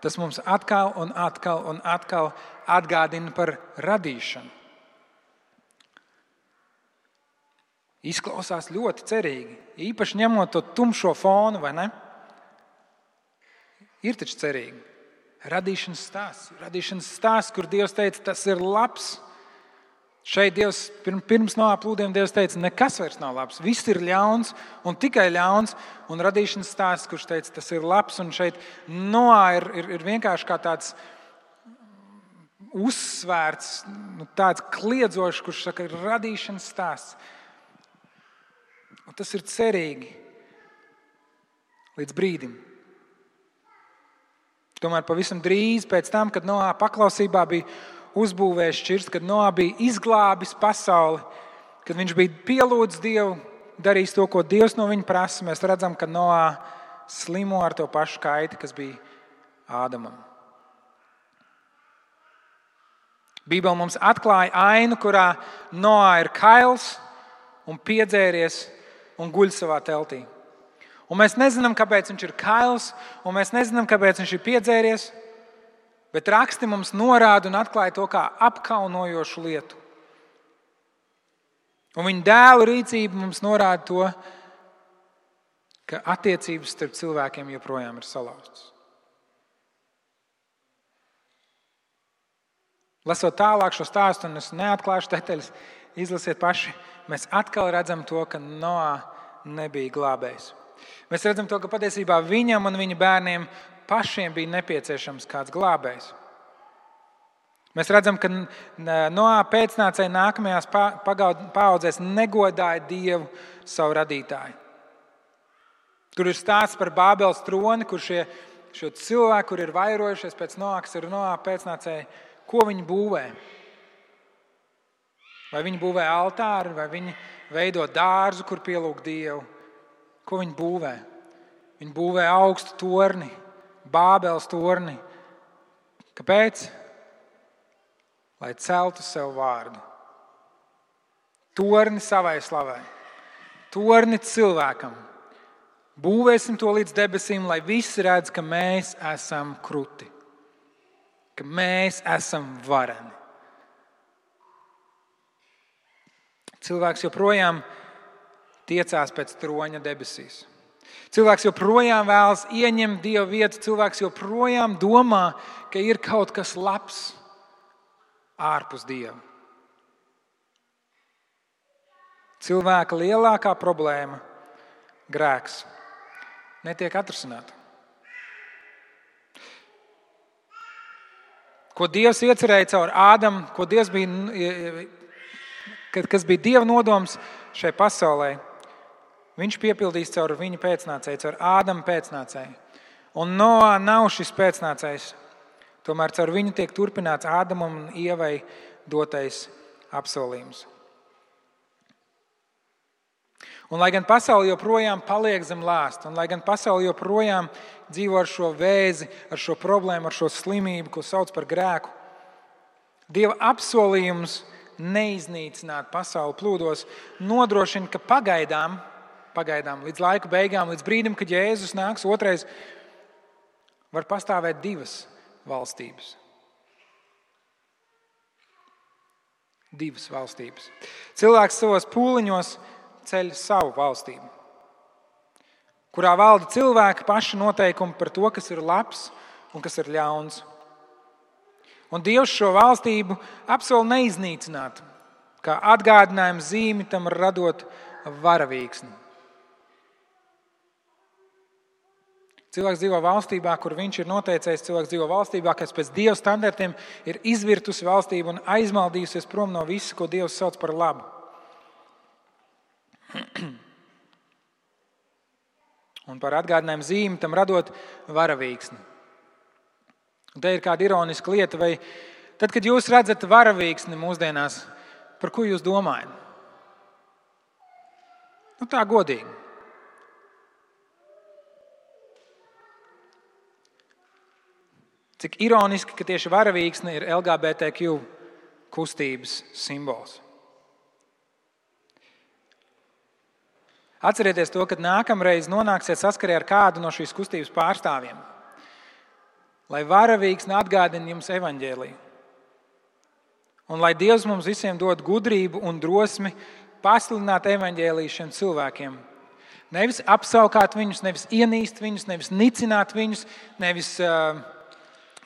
tas mums atkal un atkal atgādina par radīšanu. Izklausās ļoti cerīgi, īpaši ņemot to tumšo fonu, vai ne? Ir taču cerīgi. Radīšanas stāsts, kur Dievs teica, tas ir labs. Šeit Dievs, pirms Noā plūdiem Dievs teica, nekas vairs nav labs, viss ir ļauns un tikai ļauns, un radīšanas stāsts, kurš teica, tas ir labs, un šeit Noā ir vienkārši kā tāds uzsvērts, tāds kliedzošs, kurš saka, ir radīšanas stāsts. Un tas ir cerīgi līdz brīdim. Tomēr pavisam drīz pēc tam, kad Noā paklausībā bija uzbūvējis šķirsti, kad Noā bija izglābis pasauli, kad viņš bija pielūdzis Dievu, darījis to, ko Dievs no viņa prasa, mēs redzam, ka Noā slimo ar to pašu kaiti, kas bija Ādamam. Bībele mums atklāja ainu, kurā Noā ir kails un piedzēries un guļ savā teltī. Un mēs nezinām, kāpēc viņš ir kails, un mēs nezinām, kāpēc viņš ir piedzēries, bet raksti mums norāda un atklāja to kā apkaunojošu lietu. Un viņa dēla rīcība mums norāda to, ka attiecības starp cilvēkiem joprojām ir salauztas. Lasot tālāk šo stāstu, un es neatklāšu detaļas, izlasiet paši, mēs atkal redzam to, ka Noā nebija glābējs. Mēs redzam to, ka patiesībā viņam un viņa bērniem pašiem bija nepieciešams kāds glābējs. Mēs redzam, ka Noā pēcnācēji nākamajās paaudzēs negodāja Dievu, savu radītāju. Tur ir stāsts par Bābeles troni, kur šo cilvēku, kur ir vairojušies pēc Noā, kas ir Noā pēcnācēji, ko viņi būvē? Vai viņi būvē altāri, vai viņi veido dārzu, kur pielūg Dievu? Ko viņi būvē? Viņi būvē augstu torni, Bābeles torni. Kāpēc? Lai celtu sev vārdu. Torni savai slavai. Torni cilvēkam. Būvēsim to līdz debesīm, lai visi redz, ka mēs esam kruti. Ka mēs esam vareni. Cilvēks joprojām tiecās pēc troņa debesīs. Cilvēks joprojām vēlas ieņemt Dieva vietu. Cilvēks joprojām domā, ka ir kaut kas labs ārpus Dieva. Cilvēka lielākā problēma, grēks, netiek atrisināta. Ko Dievs iecerēja caur Ādamu, ko Dievs bija kas bija Dieva nodoms šai pasaulē, viņš piepildīs caur viņa pēcnācēju, caur Ādama pēcnācēju. Un Noā nav šis pēcnācējs. Tomēr caur viņu tiek turpināts Ādamam un Ievai dotais apsolījums. Un lai gan pasaule joprojām paliek zem lāsta, un lai gan pasaule joprojām dzīvo ar šo vēzi, ar šo problēmu, ar šo slimību, ko sauc par grēku, Dieva apsolījums neiznīcināt pasauli plūdos nodrošina, ka pagaidām, līdz laika beigām, līdz brīdim, kad Jēzus nāks otrais, var pastāvēt divas valstības. Divas valstības. Cilvēks savos pūliņos ceļ savu valstību, kurā valda cilvēki paši noteikumi par to, kas ir labs un kas ir ļauns. Un Dievs šo valstību apsola neiznīcināt, kā atgādinājumu zīmi tam radot varavīksni. Cilvēks dzīvo valstībā, kur viņš ir noteicējis, cilvēks dzīvo valstībā, kas pēc Dieva standartiem ir izvirtusi valstību un aizmaldījusies prom no visa, ko Dievs sauc par labu. Un par atgādinājumu zīmi tam radot varavīksni. Un te ir kāda ironiska lieta, vai tad, kad jūs redzat varavīksni mūsdienās, par ko jūs domājat? Tā godīgi. Cik ironiski, ka tieši varavīksne ir LGBTQ kustības simbols. Atcerieties to, kad nākamreiz nonāksiet saskarē ar kādu no šīs kustības pārstāvjiem, lai varavīksne atgādina jums evaņģēliju. Un lai Dievs mums visiem dod gudrību un drosmi pasludināt evaņģēliju šiem cilvēkiem. Nevis apsaukāt viņus, nevis ienīst viņus, nevis nicināt viņus, nevis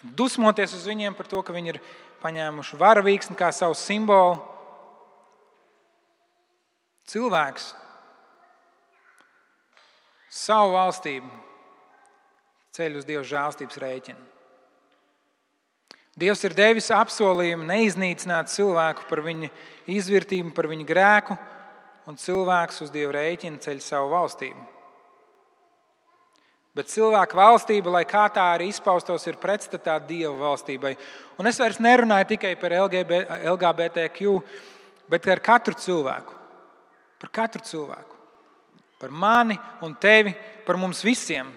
dusmoties uz viņiem par to, ka viņi ir paņēmuši varavīksni kā savu simbolu. Cilvēks savu valstību ceļ uz Dieva žēlstības rēķina. Dievs ir devis apsolījumu neiznīcināt cilvēku par viņa izvirtību, par viņa grēku, un cilvēks uz Dieva rēķina ceļ savu valstību. Bet cilvēka valstība, lai kā tā arī izpaustos, ir pretstatā Dieva valstībai. Un es vairs nerunāju tikai par LGBTQ, bet ar katru cilvēku. Par katru cilvēku. Par mani un tevi, par mums visiem.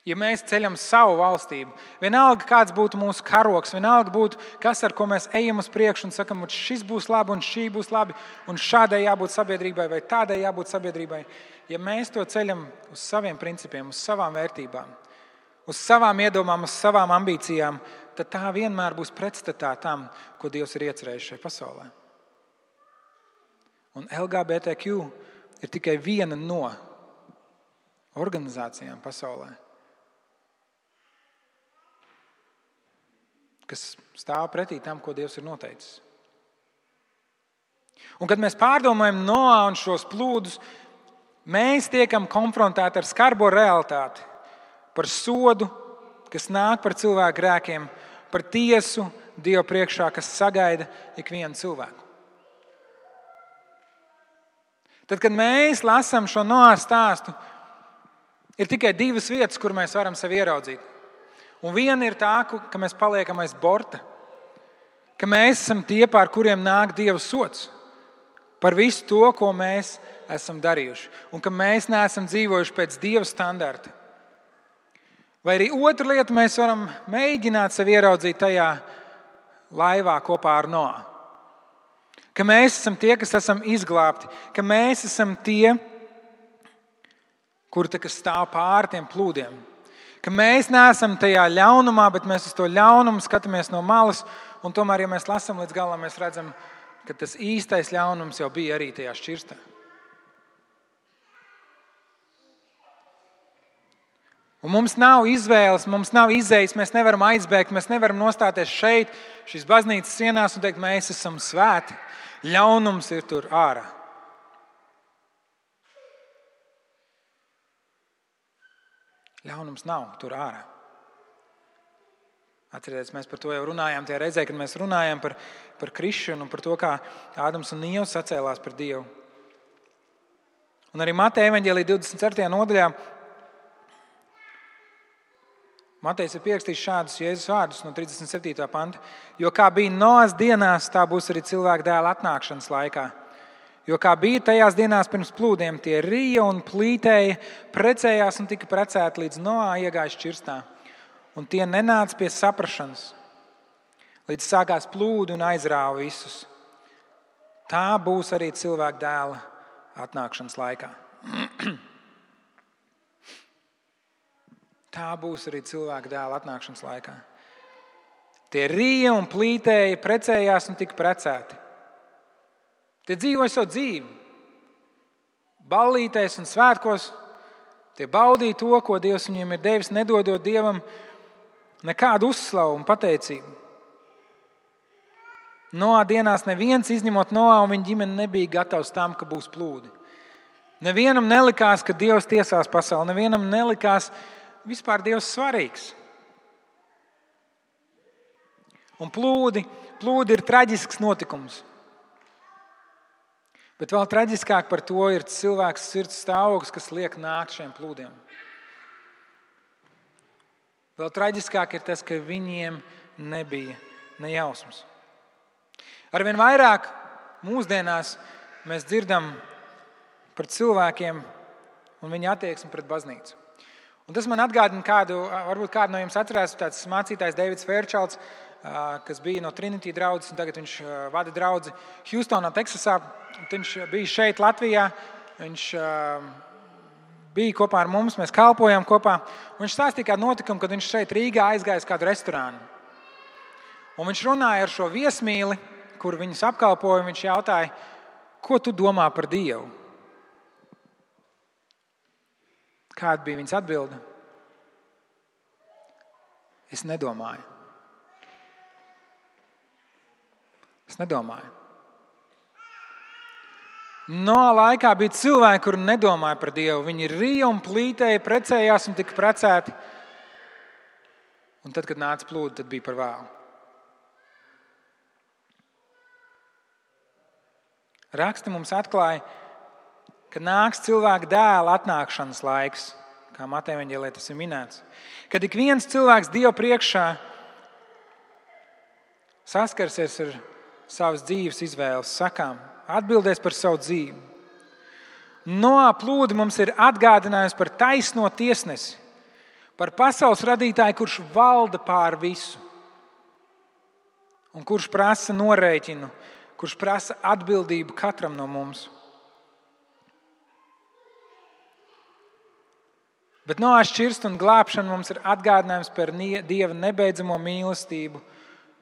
Ja mēs ceļam savu valstību, vienalga kāds būtu mūsu karoks, vienalga būtu kas, ar ko mēs ejam uz priekšu un sakam, šis būs labi un šī būs labi, un šādai jābūt sabiedrībai vai tādai jābūt sabiedrībai. Ja mēs to ceļam uz saviem principiem, uz savām vērtībām, uz savām iedomām, uz savām ambīcijām, tad tā vienmēr būs pretstatā tam, ko Dievs ir iecerējis šajā pasaulē. Un LGBTQ ir tikai viena no organizācijām pasaulē, kas stāv pretī tam, ko Dievs ir noteicis. Un kad mēs pārdomājam Noā un šos plūdus, mēs tiekam konfrontēti ar skarbo realitāti, par sodu, kas nāk par cilvēku grēkiem, par tiesu Dieva priekšā, kas sagaida ikvienu cilvēku. Tad, kad mēs lasām šo Noā stāstu, ir tikai divas vietas, kur mēs varam sevi ieraudzīt. Un viena ir tā, ka mēs paliekam aiz borta, ka mēs esam tie, pār kuriem nāk Dieva sods par visu to, ko mēs esam darījuši, un ka mēs neesam dzīvojuši pēc Dieva standarta. Vai arī otra lieta, mēs varam mēģināt sevi ieraudzīt tajā laivā kopā ar Noā. Ka mēs esam tie, kas esam izglābti, ka mēs esam tie, kuri stāv pāri tiem plūdiem. Ka mēs neesam tajā ļaunumā, bet mēs uz to ļaunumu skatāmies no malas, un tomēr, ja mēs lasām līdz galam, mēs redzam, ka tas īstais ļaunums jau bija arī tajā šķirstā. Un mums nav izvēles, mums nav izējas, mēs nevaram aizbēgt, mēs nevaram nostāties šeit, šīs baznīcas sienās un teikt, mēs esam svēti. Ļaunums ir tur ārā. Ļaunums nav tur ārā. Atcerieties, mēs par to jau runājām tajā reizē, kad mēs runājām par krišanu un par to, kā Ādams un Ieva sacēlās par Dievu. Un arī Mateja evaņģēlija 24. nodaļā Matejs ir pierakstījis šādus Jēzus vārdus no 37. panta. Jo kā bija Noas dienās, tā būs arī cilvēka dēla atnākšanas laikā. Jo kā bija tajās dienās pirms plūdiem, tie rīja un plītēja, precējās un tika precēti līdz Noā iegāja šķirstā. Un tie nenāca pie saprašanas, līdz sākās plūdi un aizrāva visus. Tā būs arī cilvēka dēla atnākšanas laikā. Tā būs arī cilvēka dēla atnākšanas laikā. Tie rīja un plītēja, precējās un tika precēti. Tie dzīvoja savu dzīvi. Ballītēs un svētkos. Tie baudīja to, ko Dievs viņiem ir devis, nedodot Dievam nekādu uzslavu un pateicību. Noā dienās neviens, izņemot Noā un viņa ģimene, nebija gatavs tam, ka būs plūdi. Nevienam nelikās, ka Dievs tiesās pasauli. Nevienam nelikās vispār Dievs svarīgs. Un plūdi ir traģisks notikums. Bet vēl traģiskāk par to ir cilvēks sirds stāvoklis, kas liek nākt šiem plūdiem. Vēl traģiskāk ir tas, ka viņiem nebija ne jausmas. Arvien vairāk mūsdienās mēs dzirdam par cilvēkiem un viņa attieksmi pret baznīcu. Un tas man atgādina varbūt kādu no jums atcerās, tāds mācītājs Deivids Fērčalds, kas bija no Trinity draudzes, un tagad viņš vada draudzi Hjūstonā, Teksasā. Viņš bija šeit Latvijā, viņš bija kopā ar mums, mēs kalpojām kopā. Un viņš stāstīja kādu notikumu, kad viņš šeit Rīgā aizgāja uz kādu restorānu. Un viņš runāja ar šo viesmīli, kur viņus apkalpoja, un viņš jautāja, ko tu domā par Dievu? Kāda bija viņas atbilde? Es nedomāju. Es nedomāju. Noā laikā bija cilvēki, kuri nedomāja par Dievu. Viņi rīja un plītēja, precējās un tika precēti. Un tad, kad nāca plūdi, tad bija par vēlu. Raksti mums atklāja, ka nāks cilvēka dēla atnākšanas laiks, kā Mateja evaņģēlijā tas ir minēts. Kad ik viens cilvēks Dieva priekšā saskarsies ar savas dzīves izvēles sakām, atbildēs par savu dzīvi. Noā plūdi mums ir atgādinājums par taisno tiesnesi, par pasaules radītāju, kurš valda pār visu un kurš prasa norēķinu, kurš prasa atbildību katram no mums. Bet Noā šķirsta un glābšana mums ir atgādinājums par Dieva nebeidzamo mīlestību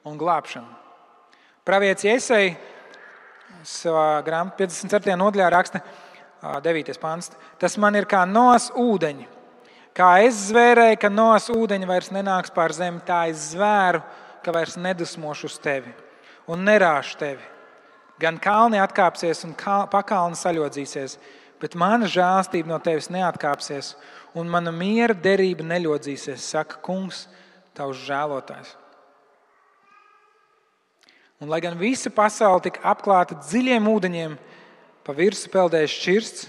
un glābšanu. Pravietis Jesaja savā grāmatā 54. nodaļā raksta 9. pants. Tas man ir kā Noas ūdeņi. Kā es zvērēju, ka Noas ūdeņi vairs nenāks pār zemi, tā es zvēru, ka vairs nedusmošu uz tevi un nerāšu tevi. Gan kalni atkāpsies un pakalni saļodzīsies, bet mana žēlastība no tevis neatkāpsies un mana miera derība neļodzīsies, saka Kungs, tavs žēlotājs. Un lai gan visa pasaule tika apklāta dziļiem ūdeņiem, pa virsu peldēja šķirsts,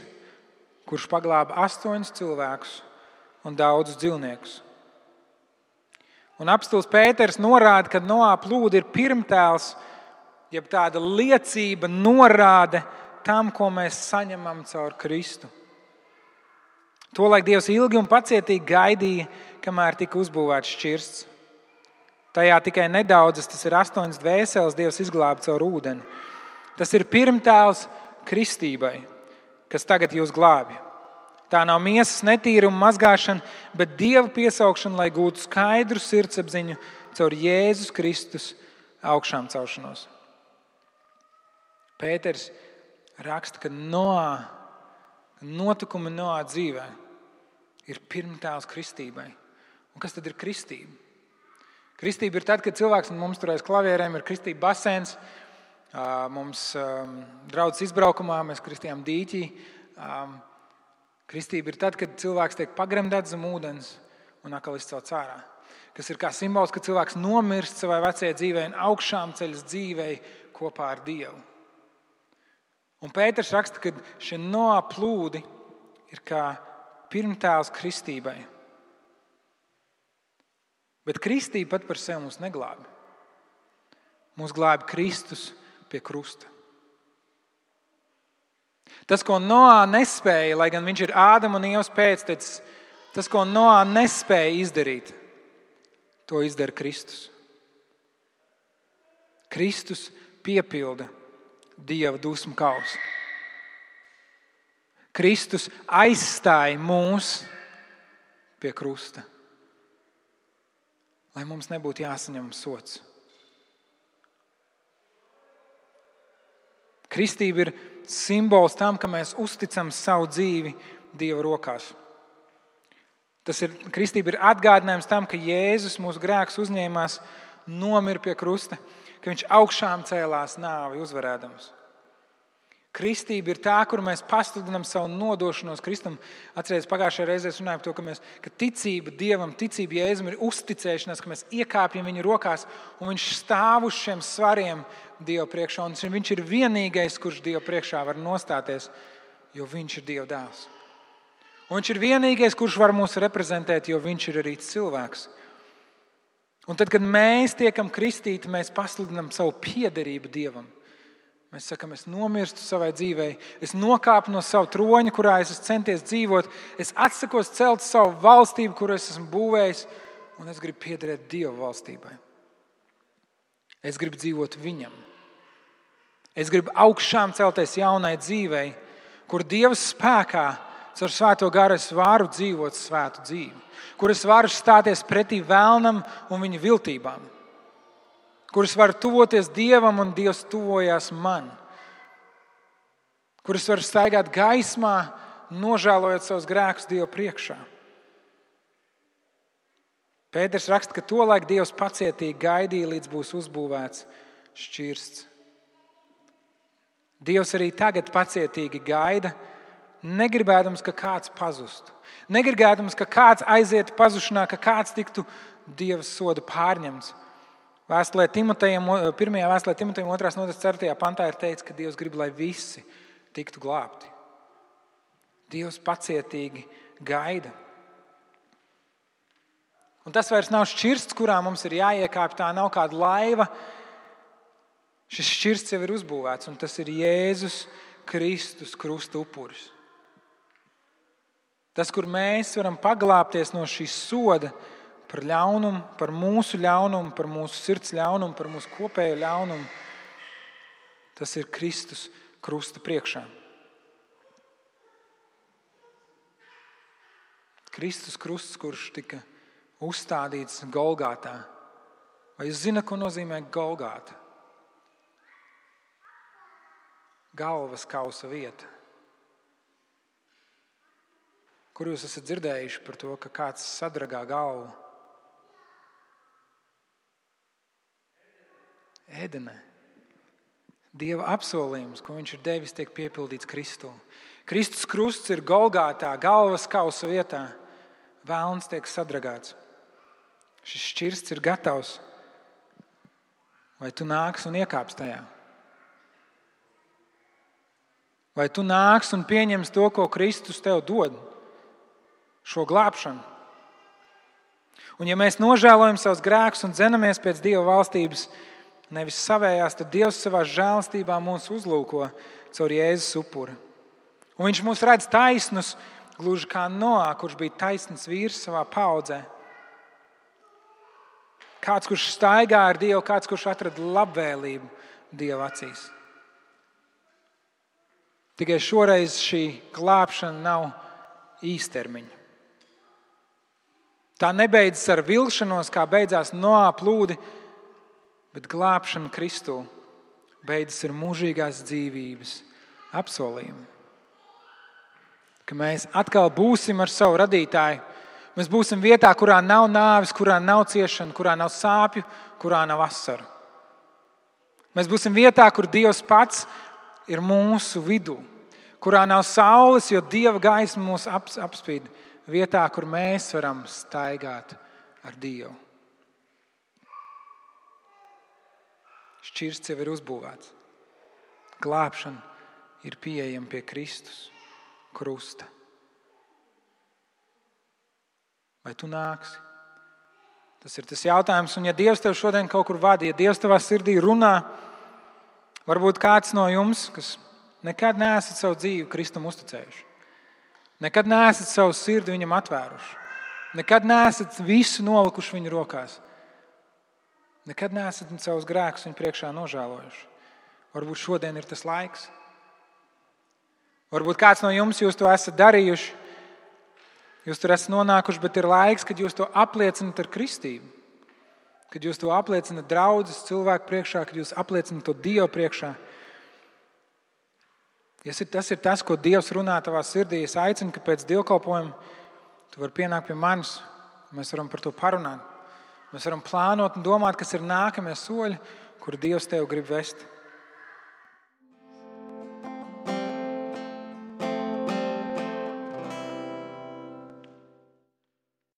kurš paglāba 8 cilvēkus un daudzus dzīvniekus. Un apstults Pēters norāda, ka Noā plūdi ir pirmtēls, jeb tāda liecība norāde tam, ko mēs saņemam caur Kristu. Tolaik Dievs ilgi un pacietīgi gaidīja, kamēr tika uzbūvēts šķirsts. Tajā tikai nedaudzas, tas ir 8 dvēseles, Dievs izglāba caur ūdeni. Tas ir pirmtēls kristībai, kas tagad jūs glābj. Tā nav miesas netīruma mazgāšana, bet Dieva piesaukšana, lai gūtu skaidru sirdsapziņu caur Jēzus Kristus augšām celšanos. Pēters raksta, ka notikumi Noā dzīvē ir pirmtēls kristībai. Un kas tad ir kristība? Kristība ir tad, kad cilvēks mums tur aiz klavierēm ir kristība basēns. Mums draudzes izbraukumā mēs kristījām dīķī. Kristība ir tad, kad cilvēks tiek pagremdēts zem ūdens un atkal izcelts ārā. kas ir kā simbols, ka cilvēks nomirst savai vecajai dzīvei un augšām ceļas dzīvei kopā ar Dievu. Un Pēters raksta, ka šie Noā plūdi ir kā pirmtēls kristībai. Bet kristība pat par sevi mūs neglābi. Mūs glābi Kristus pie krusta. Tas, ko Noā nespēja, lai gan viņš ir Ādama un Ievas pēctecis, tas, ko Noā nespēja izdarīt, to izdara Kristus. Kristus piepilda Dieva dusmu kausu. Kristus aizstāja mūs pie krusta, lai mums nebūtu jāsaņem sods. Kristība ir simbols tam, ka mēs uzticam savu dzīvi Dieva rokās. Kristība ir atgādinājums tam, ka Jēzus mūsu grēkus uzņēmās, nomira pie krusta, ka viņš augšām cēlās nāvi uzvarēdams. Kristība ir tā, kur mēs pasludinām savu nodošanos Kristum. Atcerieties, pagājušajā reizē runājām par to, ka ticība Dievam, ticība Jēzum ir uzticēšanās, ka mēs iekāpjam viņa rokās un viņš stāv uz šiem svariem Dieva priekšā. Un viņš ir vienīgais, kurš Dieva priekšā var nostāties, jo viņš ir Dieva dēls. Un viņš ir vienīgais, kurš var mūs reprezentēt, jo viņš ir arī cilvēks. Un tad, kad mēs tiekam kristīti, mēs pasludinām savu piederību Dievam. Mēs sakam, es nomirstu savai dzīvei, es nokāpu no sava troņa, kurā es esmu centies dzīvot, es atsakos celt savu valstību, kuru es esmu būvējis, un es gribu piederēt Dieva valstībai. Es gribu dzīvot viņam. Es gribu augšām celties jaunai dzīvei, kur Dieva spēkā caur Svēto garu es varu dzīvot svētu dzīvi, kur es varu stāties pretī vēlnam un viņa viltībām, kur es varu tuvoties Dievam un Dievs tuvojās man, kur es varu staigāt gaismā, nožēlojot savus grēkus Dieva priekšā. Pēters raksta, ka tolaik Dievs pacietīgi gaidīja, līdz būs uzbūvēts šķirsts. Dievs arī tagad pacietīgi gaida, negribēdams, ka kāds pazustu. Negribēdams, ka kāds aizietu pazušanā, ka kāds tiktu Dieva soda pārņemts. Vēstulē Timotejam, 1. vēstulē Timotejam 2. nodaļas 4. pantā ir teikts, ka Dievs grib, lai visi tiktu glābti. Dievs pacietīgi gaida. Un tas vairs nav šķirsts, kurā mums ir jāiekāpj, tā nav kāda laiva. Šis šķirsts jau ir uzbūvēts, un tas ir Jēzus Kristus krusta upuris. Tas, kur mēs varam paglābties no šīs soda par ļaunumu, par mūsu ļaunumu, par mūsu sirds ļaunumu, par mūsu kopējo ļaunumu, tas ir Kristus krusta priekšā. Kristus krusts, kurš tika uzstādīts Golgātā. Vai jūs zināt, ko nozīmē Golgāta? Galvas kausa vieta. Kur jūs esat dzirdējuši par to, ka kāds sadragā galvu? Ēdenē. Dieva apsolījums, ko viņš ir devis, tiek piepildīts Kristū. Kristus krusts ir Golgātā, galvas kausa vietā. Vēlns tiek sadragāts. Šis šķirsts ir gatavs. Vai tu nāks un iekāps tajā? Vai tu nāks un pieņems to, ko Kristus tev dod? Šo glābšanu. Un ja mēs nožēlojam savus grēkus un dzenamies pēc Dieva valstības, nevis savējās, tad Dievs savā žēlastībā mūs uzlūko caur Jēzus upuri. Un viņš mūs redz taisnus, gluži kā Noā, kurš bija taisns vīrs savā paaudzē. Kāds, kurš staigā ar Dievu, kāds, kurš atrada labvēlību Dieva acīs. Tikai šoreiz šī glābšana nav īstermiņa. Tā nebeidzas ar vilšanos, kā beidzās Noā plūdi, bet glābšana Kristū beidzas ar mūžīgās dzīvības apsolījumu. Ka mēs atkal būsim ar savu radītāju. Mēs būsim vietā, kurā nav nāves, kurā nav ciešana, kurā nav sāpju, kurā nav asaru. Mēs būsim vietā, kur Dievs pats ir mūsu vidū, kurā nav saules, jo Dieva gaisma mūs apspīd. Vietā, kur mēs varam staigāt ar Dievu. Šķirsts jau ir uzbūvēts. Glābšana ir pieejama pie Kristus krusta. Vai tu nāksi? Tas ir tas jautājums. Un ja Dievs tev šodien kaut kur vada, ja Dievs tavā sirdī runā, varbūt kāds no jums, kas nekad neesat savu dzīvi Kristum uzticējuši, nekad neesat savu sirdi viņam atvēruši, nekad neesat visu nolikuši viņa rokās, nekad neesat savus grēkus viņa priekšā nožēlojuši. Varbūt šodien ir tas laiks. Varbūt kāds no jums jūs to esat darījuši, jūs tur esat nonākuši, bet ir laiks, kad jūs to apliecinat ar kristību, kad jūs to apliecinat draudzes cilvēku priekšā, kad jūs apliecinat to Dievu priekšā. Tas ir tas, ko Dievs runā tavā sirdī. Es aicinu, ka pēc dievkalpojuma tu vari pienākt pie manis, mēs varam par to parunāt. Mēs varam plānot un domāt, kas ir nākamie soļi, kur Dievs tev grib vest.